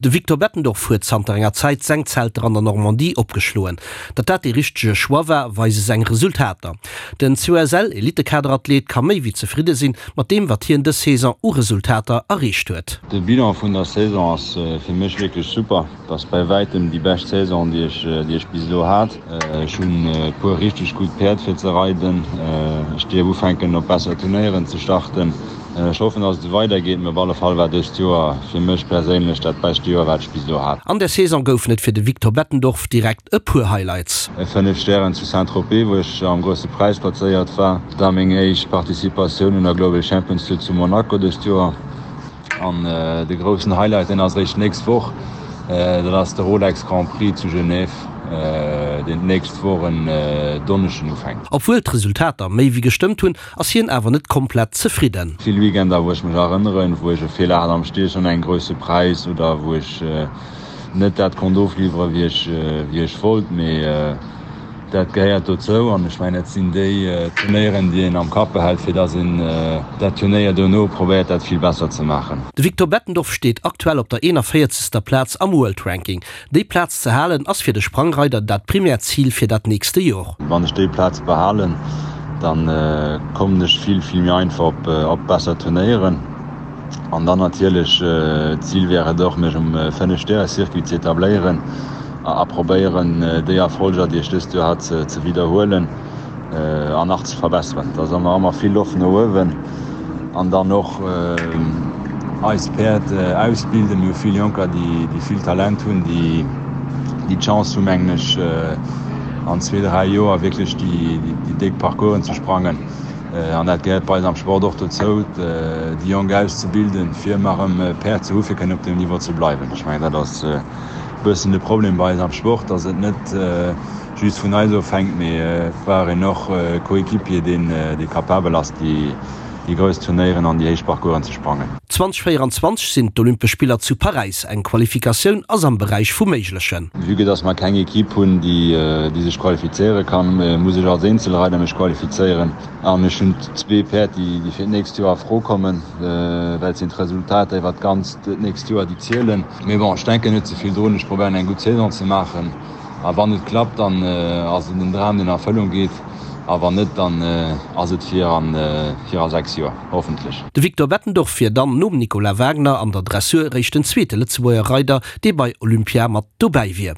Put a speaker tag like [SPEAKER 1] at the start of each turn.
[SPEAKER 1] De Victor Bettendorf huet zanter enger Zäit seng Zelter an der Normandie opgeschloen. Datt dat dee richtege Choix war, weise seng Resultater. Den COSL-Elittekaderathlet ka méi wéi zefridde sinn mat deem, wat hien dës Saison u Resultater erreecht huet.
[SPEAKER 2] De Bilan vun der Saison ass fir mech wierklech super. Et ass bäi wäitem déi bescht Saison, déi ech, déi ech bis elo hat. Ech hunn e puer richteg gutt Päerd fir ze reiden. Ech dierf ufänken op besser Turnéieren ze starten. Ech hoffen dass et esou weider geet, mee op alle Fall war dëst Joer fir mech perséinlech dat bescht Joer wat ech bis elo hat.
[SPEAKER 1] An der Saison goufen et fir de Victor Bettendorf direkt e puer Highlights.
[SPEAKER 2] E 5 Stären zu Saint-Tropez wou ech am grousse Präis plazéiert war, da meng éischt Participatioun un der Global Champions Tour zu Monaco dëst Joer an de groussen Highlight deen ass eréischt d'nächst Woch, dat ass de Rolex Grand Prix zu Genève deen d'nächst Woch en Donneschden ufänkt.
[SPEAKER 1] Obwuel d'Resultater méi wéi gestëmmt hunn, ass hien awer net komplett zefridden.
[SPEAKER 2] Vill Weekender wou ech mech erënneren, wou ech e Feeler hat am Stiechen an engem grousse Präis oder wou ech net dat konnt ofliwweren, wéi ech wéi ech wollt. Mee dat gehéiert dozou an ech mengen dat sinn déi Turnéieren, déi een am Kapp behält, fir datt een dat Turnéier dono probéiert dat vill besser ze maachen.
[SPEAKER 1] De Victor Bettendorf steet aktuell op der 41. Plaz am World Ranking. Déi Plaz ze halen ass fir de Sprangreider dat primäert Zil fir dat nächste Jor.
[SPEAKER 2] Wann ech déi Plaz behalen, dann kommen ech vill, vill méi einfach op besser Turnéieren. An dann natierlech, d'Zil wär et och, mech um 5 Stäre Circuit ze etabléieren a probéieren, déi Erfolger, déi ech dëst Joer hat, ze widderhuelen. An nach ze verbesseren. Da ass nach ëmmer vill Loft no uewen. An dann och eis Päerd ausbilden. Mir hu vill Jonker, déi vill Talent hunn, déi d'Chance hu mengen ech an zwee, dräi Joer wierklech déi déck Parcoursen ze sprangen. An dat gehéiert bei eis am Sport och dozou, déi Jonk auszebilden, fir ëmmer erëm Päerd ze hu fir kënnen op deem Niveau ze bleiwen. Ech mengen dat ass e bëssen de Problem bei eis am Sport, datt et net just vun eis ofhänkt, mee et brauch een och e Coéquipier, deen dee capabel ass, déi déi grouss Turnéieren an déi héich Parcoursen ze sprangen.
[SPEAKER 1] 2024 sinn d'Olympesch Spiller zu Paräis. Eng Qualifikatioun ass am Beräich vum Méiglechen.
[SPEAKER 2] Vue que dass mer keng Equipe hunn, déi déi sech qualifizéiere kann, muss ech als Eenzelreider mech qualifizéieren. An ech hunn zwee Päerd, déi déi fir d'nächst Joer a Fro kommen, well et sinn d'Resultater iwwert d'ganzt nächst Joer, déi zielen. Mee bon, ech denken net ze vill drun, ech probéieren eng gutt Saison ze maachen. A wann et klappt, dann ass et en Dram, deen a Erfëllung geet. A wann net, dann ass et fir a 6 Joer, hoffentlech.
[SPEAKER 1] De Victor Bettendorf wier dann nom Nicolas Wagner an der Dressur réischt den zweete Lëtzebuerger Reider, dee bei Olympia mat dobäi wier.